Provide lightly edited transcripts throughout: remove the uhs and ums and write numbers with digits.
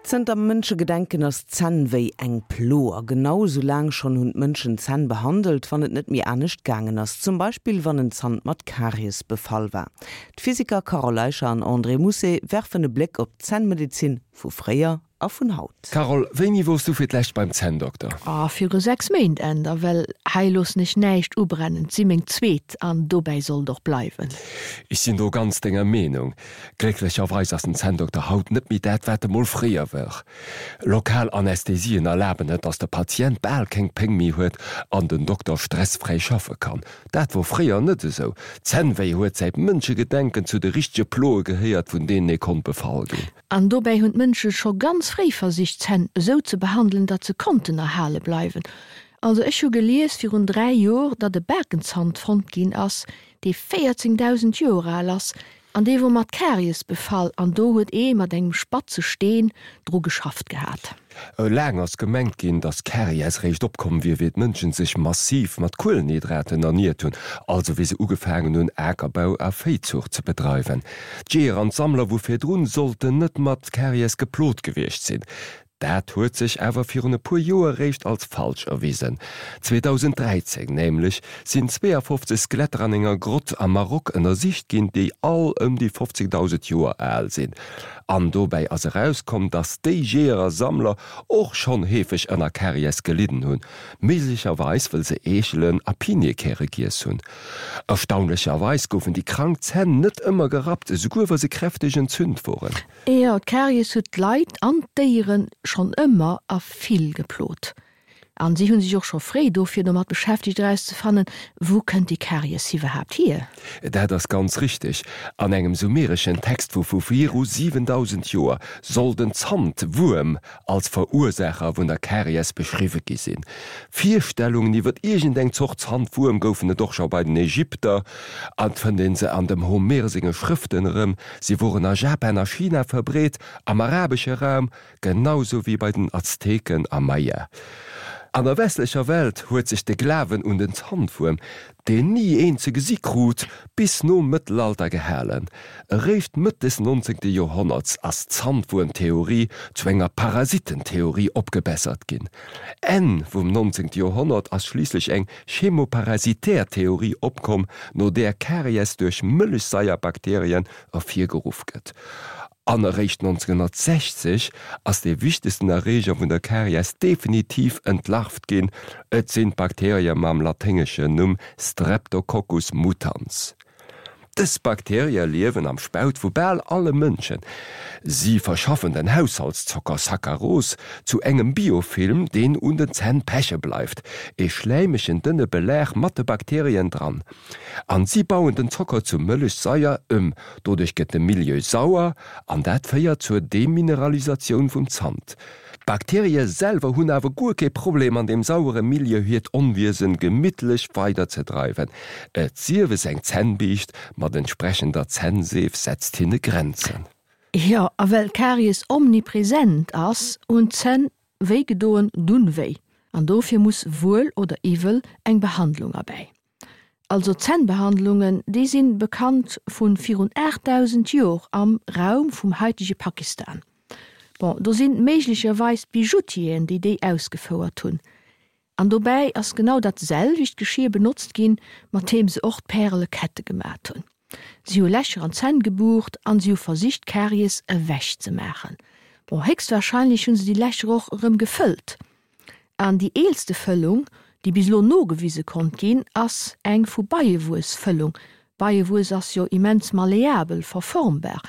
Zënter Mënschegedenken ass d'Zännwéi eng Plo. A genau esou laang schonn hunn d'Mënschen d'Zänn behandelt, wann et net méi anescht gaangen ass. Zum Beispill wann en Zant mat Karies befall war. D'Physiker Carole Eicher an André Mousset werfen e Bléck op d'Zännmedezin vu fréier a vun haut. Carole, wéini wors du fir d'lescht beim Zänndokter? Oh, viru 6 Méint, Änder, well hei loossen ech näischt ubrennen. 't si meng zweet an dobäi soll et och bleiwen. Ech sinn do ganz denger Meenung. Glécklecherweis ass den Zänndokter haut net méi dat, wat e mol fréier wor. Lokal Anästhesien erlaben et, dass de Patient bal keng Péng méi huet an den Dokter stressfräi schaffe kann. Dat wor fréier net esou. Zännwéi huet säit Mënschegedenken zu de richtege Ploe gehéiert, vun deenen ee konnt befall ginn. An dobäi hunn d'Mënsche scho ganz fréi versicht, d'Zänn esou ze behandelen, datt se konnten erhale bleiwen. Also ech hu gelies virun 3 Jor, datt e Bakenzant fonnt ginn ass, dee 14.000 Joer al ass, An dee wor mat Karies befall an do huet ee mat engem spatze Steen dru geschafft gehat. Laang ass gemengt ginn, datt Karies réischt opkomm wier, wéi d'Mënschen sech massiv mat Kuelenhydraten erniert hunn, also wéi se ugefaangen hunn Akerbau a Véizuucht ze bedreiwen. D'Jeeër an d'Sammler vu virdrun sollten net mat Karies geplot gewiescht sinn. Dat huet sech awer virun e puer Joer réischt als falsch erwisen. 2013 nämlech sinn 52 Skeletter an enger Grott am Maroc ënnersicht ginn, déi all ëm déi 15.000 Joer al sinn. An dobäi ass erauskomm, dass déi Jeeër a Sammler och schonn heefeg ënner Karies gelidden hunn, méiglecherweis wëll se Eechelen a Piniekäre giess hunn. Erstaunlecherweis goufen déi krank Zänn net ëmmer gerappt, esouguer wa se kräfteg entzünt woren. Jo, d'Karies huet d'Leit an d'Déiere schonn ëmmer a vill geplot. An si hunn sech och scho fréi dofir domat beschäftegt erauszefannen, wou kënnt déi Karies iwwerhaapt hier? Dat ass ganz richteg. An engem sumereschen Text vu vu viru 7000 Joer soll den Zantwuerm als Verursaacher vun der Karies beschriwwe gi sinn. Virstellungen iwwer iergendeng Zort Zantwuerm goufen et och scho bei den Ägypter an et fënnt ee se an dem Homer senge Schrëften erëm. Si woren a Japan a China verbreet, am arabesche Raum genau sou wéi bei den Azteken a Maya. An der westlecher Welt huet sech de Glawen un den Zantwuerm, deen ni een ze gesi krut, bis nom Mëttelalter gehalen. Eréischt Mëtt des 19. Joerhonnerts ass d'Zantwuermtheorie zu enger Parasitentheorie opgebessert ginn. Enn vum 19. Joerhonnert ass schliisslech eng chemoparasitär Theorie opkomm, no där Karies duerch Mëllechsaierbakterien ervirgeruff gëtt. An eréischt 1960 ass dee wichtegsten Erreeger vun der Karies definitiv entlarvt ginn, et sinn d'Bakterie mam laténgeschen Numm Streptococcus mutans. Dës Bakterië liewen am Spaut vu bal alle Mënschen. Si verschaffen den Haushaltszocker Saccharose zu engem Biofilm, deen un den Zänn peche bleift, e schläimegen dënne Belag mat de Bakterien dran. An si bauen den Zocker zu Mëllechsaier ëm. Doduerch gëtt de Milieu sauer an dat féiert zur Demineralisatioun vum Zant. D'Bakterie selwer hunn awer guer kee Problem an deem sauere Milieu hiert Onwiesen gemittlech weider ze dreiwen, et sief es eng Zännbiischt mat entsprechender Zännseef setzt hinne Grenzen. Jo, a well Karies omnipresent ass, hunn d'Zänn wéi gedoen dunn wéi, an dofir muss wuel oder iwwel eng Behandlung erbäi. Also Zännbehandlungen, déi sinn bekannt vun virun 8000 Jor am Raum vum haitege Pakistan. Bon, do sinn méiglecherweis d'Bijoutieren, déi déi ausgefouert hunn. An dobäi ass genau dat selwecht Geschir benotzt ginn, mat deem se och d'Pärelekette gemat hunn. Si hu Lächer an d'Zänn gebucht an si hu versicht d'Karies ewech ze maachen. Bon, héchstwahrscheinlech hunn se déi Lächer och erëm gefëllt. An déi eelste Fëllung, déi bis elo nogewise konnt ginn, ass eng vu Beiewuessfëllung. Beiewuess ass jo immens malleabel, verformbar,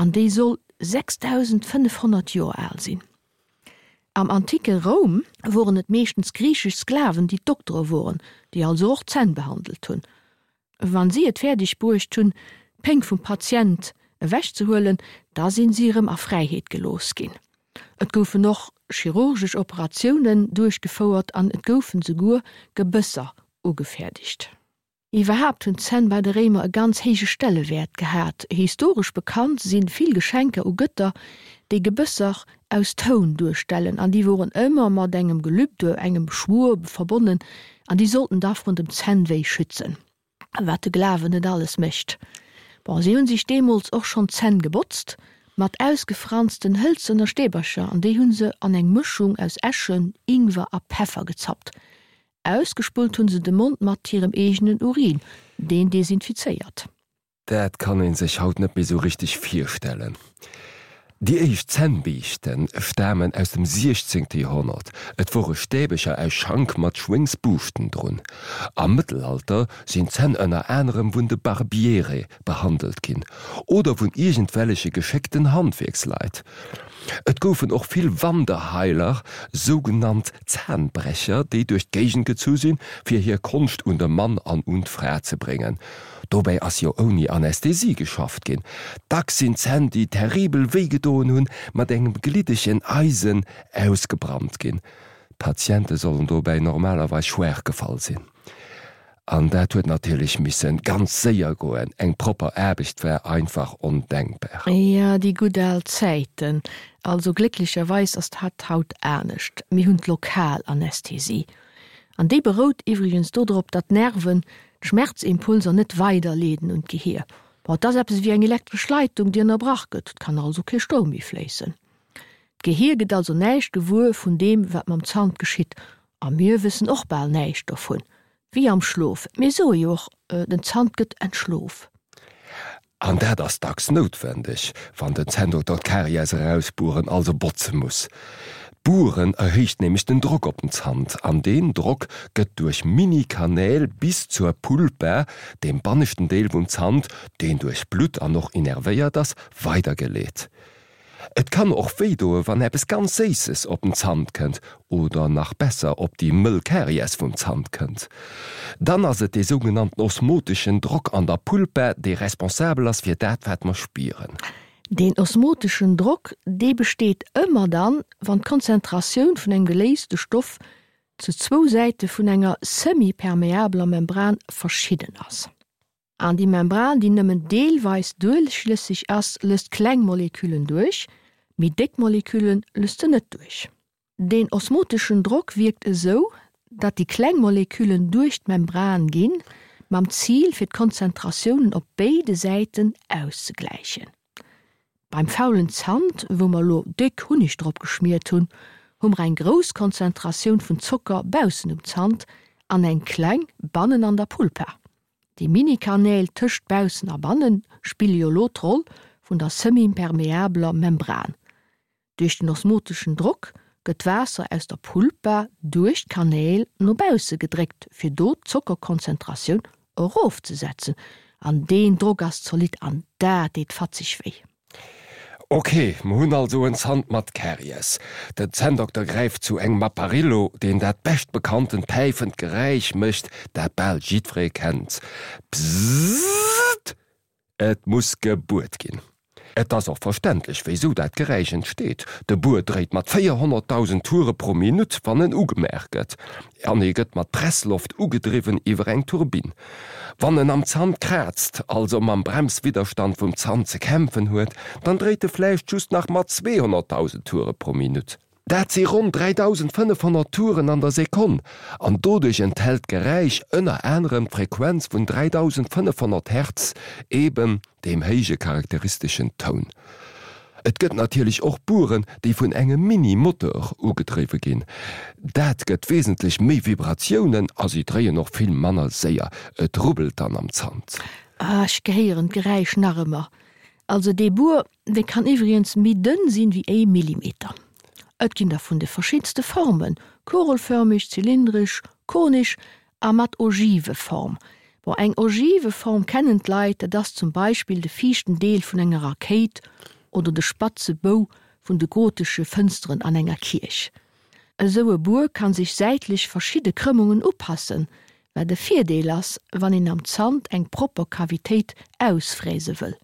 an déi soll 6.500 Joer al sinn. Am anticke Roum woren et meeschtens griichesch Sklaven, déi d'Doktere woren, déi also och d'Zänn behandelt hunn. Wann si et fäerdeg bruecht hunn, d'Péng vum Patient ewech ze huelen, da sinn si erëm a Fräiheet gelooss ginn. Et goufen och chirurgesch Operatiounen duerchgefouert an et goufen souguer Gebësser ugefäerdegt. Iwwerhaapt hunn d'Zänn bei de Réimer e ganz héije Stellewäert gehat. Historesch bekannt sinn vill Geschenker u Gëtter, déi Gebësser aus Toun duerstellen an déi woren ëmmer mat engem Gelübde, engem Schwur verbonnen an déi sollten da vrun dem Zännwéi schützen. Wat de Glawen net alles mécht. Bon, si hunn sech deemools och schonn d'Zänn gebotzt. Mat ausgefransten hëlzener Stäbercher an déi hu se an eng Mëschung aus Äschen, Ingwer a Peffer gezappt. Ausgespullt hu se de Mond mat hirem eegenen Urin, deen desinfizéiert. Dat kann een sech haut net méi sou richteg virstellen. Déi éischt Zännbiischte stamen aus dem siechzéngte Joerhonnert. Et wore Stäbecher aus Schank mat Schwéngsbuuschten drun. Am Mëttelalter sinn d'Zänn ënner anerem vun de Barbiere behandelt ginn oder vun iergendwelleche geschéckten Handwierksleit. Et goufen och vill Wanderheiler, sougenannt Zahnbrecher, déi duerch d'Géigend gezu sinn, fir hir Konscht un de Mann an un d'Fra ze bréngen. Dobäi ass jo ouni Anästhesie geschafft ginn. Dacks sinn Zänn, déi terribel wéi gedoen hunn, mat engem gliddegen Eisen ausgebrannt ginn. D'Patiente sollen dobäi normalerweis schwaach gefall sinn. An dat huet natierlech missen ganz séier goen, eng propper Aarbecht war einfach ondenkbar. Jo, déi gutt al Zäiten. Also glécklecherweis ass dat haut anescht. Mir hunn d'Lokalanästhesie. An déi berout iwwregens dodrop, datt d'Nerven d'Schmerzimpulser net weiderleeden un d'Gehier. Bon, et ass eppes ewéi eng elektresch Leitung, déi ënnerbrach gëtt, et kann also kee Stroum méi fléissen. D'Gehier gëtt also näischt gewuer vun deem, wat mam Zant geschitt. A mir wëssen och bal näischt dovun. Wéi am Schlof. Mir soe jo och, den Zant gëtt entschlof. An dat ass dacks noutwendeg, wann den Zänndokter d'Karies erausbueren, also botze muss. D'Bueren erhéicht nämlech den Drock op den Zant, an deen Drock gëtt duerch Mini-Kanäl bis zur Pulpa, deem banneschten Deel vum Zant, deen duerch Blutt an och innervéiert ass, weidergeleet. Et kann och wéi doe wann eppes ganz Séisses op den Zant kënnt oder nach besser op déi mëll Karies vum Zant kënnt. Dann ass et dee sougenannten osmoteschen Drock an der Pulpa, dee responsabel ass fir dat wat mer spieren. Deen osmoteschen Drock, dee besteet ëmmer dann, wann d'Konzentratioun vun engem geléiste Stoff zu zwou Säite vun enger semi-permeabeler Membran verschidden ass. An déi Membran, déi nëmmen deelweis duerchlësseg ass, lësst kleng Moleküllen duerch, méi déck Molekülle lësst se net duerch. Deen osmoteschen Drock wierkt esou, datt déi kleng Moleküllen duerch d'Membran ginn, mam Zil fir d'Konzentratiounen op béide Säiten auszegläichen. Beim faulen Zant, wou mer lo déck Hunneg drop geschmiert hunn, hu mer eng grouss Konzentratioun vun Zocker baussen um Zant an eng kleng bannen an der Pulpa. Déi Mini-Kanäl tëscht baussen a bannen spille jo lo d'Roll vun der semi-impermeabeler Membran. Duerch den osmoteschen Drock gëtt d'Waasser aus der Pulpa duerch d'Kanäl no bausse gedréckt fir do d'Zockerkonzentratioun erofzesetzen an deen Drock ass zolidd an dat deet fatzeg wéi. Ok, mer hunn also en Zant mat Karies. Den Zänndokter gräift zu engem Apparillo, deen dat beschtbekanntent päifend Geräisch mécht, dat bal jiddweree kennt, Bzzzt! Et muss gebuert ginn. Et ass och verständlech, wéisou dat Geräisch entsteet, De Buer dréit mat 400.000 Toure pro Minutt, wann en ugemaach gëtt, an e gëtt mat Pressloft ugedriwwen iwwer eng Turbinn. Wann en am Zant kraazt, also mam Bremswidderstand vum Zant ze kämpfen huet, dann dréit e vläicht just nach mat 200.000 Toure pro Minutt. Dat si ronn 3.500 Touren an der Sekonn, an doduerch enthält d'Geräisch ënner anerem d'Frequenz vun 3.500 Hertz, eben deem héije charakteristeschen Toun. Et gëtt natierlech och Bueren, déi vun engem Mini-Moteur ugedriwwe ginn. Dat gëtt wesentlech méi Vibratiounen a si dréien och vill manner séier. Et rubbelt dann am Zant. Ah, ech gehéieren d'Geräisch nach ëmmer. Also dee Buer, dee kann iwwregens méi dënn sinn wéi ee Millimeter. Et ginn der vun de verschiddenste Formen, kugelförmeg, zylindresch, konesch A mat Ogiveform. Bon, eng Ogiveform kennen d'Leit, dat ass zum Beispill de viischten Deel vun enger Rakéit oder de spatze Bou vun de gotesche Fënsteren an enger Kierch. Esou e Buer kann sech säitlech verschidde Krëmmungen upassen, wat e Virdeel ass, wann een am Zant eng propper Kavitéit ausfräse wëll.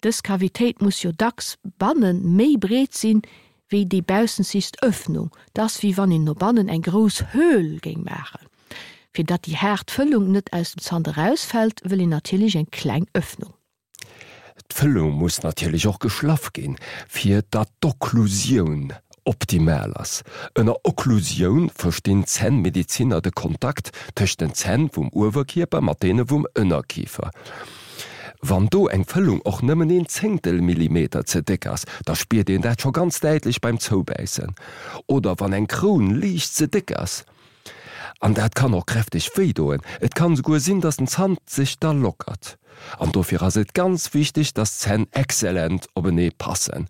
Dës Kavitéit muss jo dacks bannen méi breet sinn, wéi déi baussenzigst Öffnung. 't ass wéi wann een no bannen eng grouss Höhl géing maachen. Fir datt déi haart Fëllung net aus dem Zant erausfält, wëll een natierlech eng kleng Öffnung. D'Fëllung muss natierlech och geschlaff ginn, fir datt d'Okklusioun optimal ass. Ënner Okklusioun verstinn d'Zännmedeziner de Kontakt tëscht den Zänn vum Uewerkierper mat deene vum Ënnerkifer. Wann do eng Fëllung och nëmmen een Zéngtel Millimeter ze déck ass, da spiert een dat scho ganz däitlech beim Zoubäissen. Oder wann eng Kroun liicht ze déck ass. An dat kann och kräfteg wéi doen. Et kann esouguer sinn, dass den Zant sech da lockert. An dofir ass et ganz wichteg, dass d'Zänn exzellent openee passen.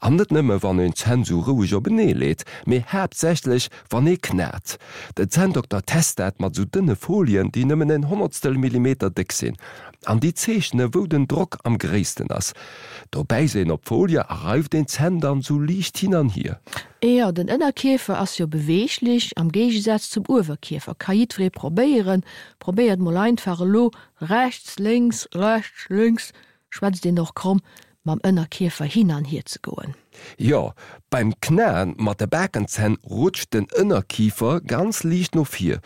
An net nëmme wann een d'Zänn sou roueg openee leet, mee haaptsächlech wann ee knat. Den Zänndokter test dat mat sou dënne Folien, déi nëmmen en Honnertstel Millimeter déck sinn. An déi zeechne wou den Drock am gréissten ass. Do bäisst een op d'Folie a reift een d'Zänn dann sou liicht hin an hier. Jo, den Ënnerkiefer ass jo beweeglech, am Géigesaz zum Uewerkiefer. Ka jiddweree probéieren. Probéiert mol einfach elo rechts, lénks, rechts, lénks, schwätzt een och kromm, mam Ënnerkiefer hin an hier ze goen. Jo, beim Knaen mat de Bakenzänn rutscht den Ënnerkifer ganz liicht no vir.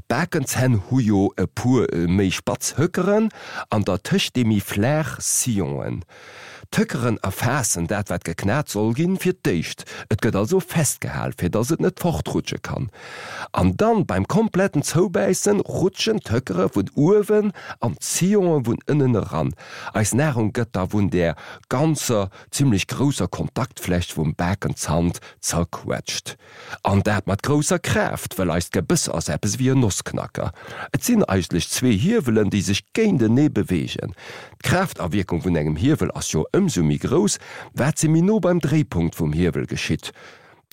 D'Bakenzänn hu jo e puer méi spatz Höckeren an dertëscht déi méi flaach Sillonen. D'Höckeren erfaassen dat wat geknat soll ginn fir d'éischt, et gëtt also festgehal fir dass et net fortrutsche kann. An dann beim kompletten Zoubäissen rutschen d'Höckere vun uewen an d'Sillonen vun ënnen eran. Eis Nahrung gëtt da vun där ganzer zimmlech grousser Kontaktfläch vum Bakenzant zerquetscht. An dat mat grousser Kraaft, well eist Gebëss ass eppes ewéi en Nossknacker. Et sinn eigentlech zwee Hiewelen, déi sech géintenee beweegen. D'Kraaftawierkung vun engem Hiewel ass jo ëmsou méi grouss, wat se méi no beim Dréipunkt vum Hiewel geschitt.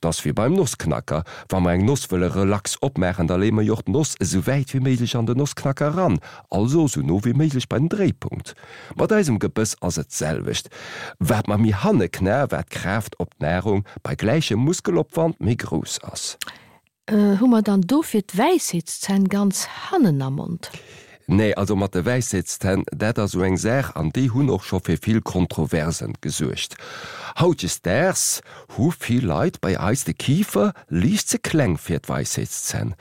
't ass wéi beim Nossknacker, Wa mer eng Noss wëlle relax opmaachen, da leeë mer jo och d'Noss esou wäit wéi méiglech an den Nossknacker eran, also esou no wéi méiglech bei den Dréipunkt. Mat eisem Gebëss ass et d'selwecht. Wat mer méi hanne knae, wat d'Kraaft op d'Nahrung bei gläichem Muskelopwand méi grouss ass. Hu mer dann dofir d'Wäisheetszänn ganz hannen am Mond? Nee, also mat de Wäisheetszänn, dat ass esou eng Saach an déi hunn och scho fir vill Kontroversen gesuergt. Hautdesdaags hu vill Leit bei eis de Kifer liicht ze kleng fir d'Weisheetszänn.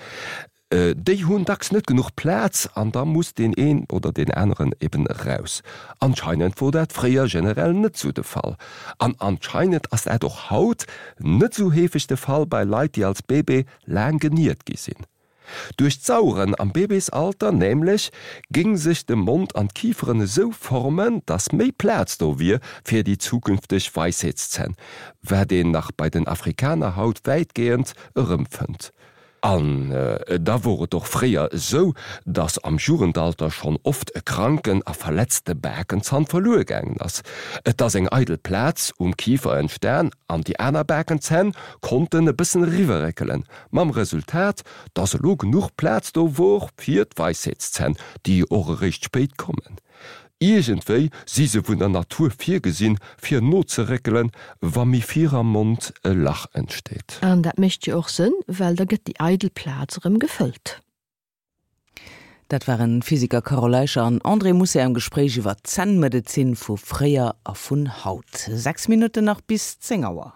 Déi hunn dacks net genuch Plaz an da muss deen een oder deen aneren eben eraus. Anscheinend wor dat fréier generell net sou de Fall. An anscheinend ass dat och haut net sou heefeg de Fall bei Leit, déi als Bébé laang geniert gi sinn. Duerch d'Saueren am Bébésalter nämlech géing sech de Mond an d'Kiferen esou formen, dass méi Plaz do wier fir déi zukünfteg Weisheetszänn, wat een nach bei den Afrikaner haut wäitgehend erëmfënnt. An da wor et och fréier esou, dass am Jugendalter schonn oft e kranken a verletzte Bakenzann verluer gaangen ass. Et ass eng eidel Plaz um Kifer entstan an déi aner Bakenzänn konnten e bëssen eriwwerréckelen, mam Resultat, dass elo genuch Plaz do wor fir d'Weisheetszänn, déi och eréischt spéit kommen. Iergendwéi si se vun der Natur virgesinn, fir nozeréckelen, wa méi vir am Mond e Lach entsteet. An dat mécht jo och Sënn, well da gëtt déi eidel Plaz erëm gefëllt. Dat waren d'Physiker Carole Eicher an André Mousset am Gespréich iwwer d'Zännmedezin vu fréier a vun haut. 6 Minutten nach bis 10 Auer.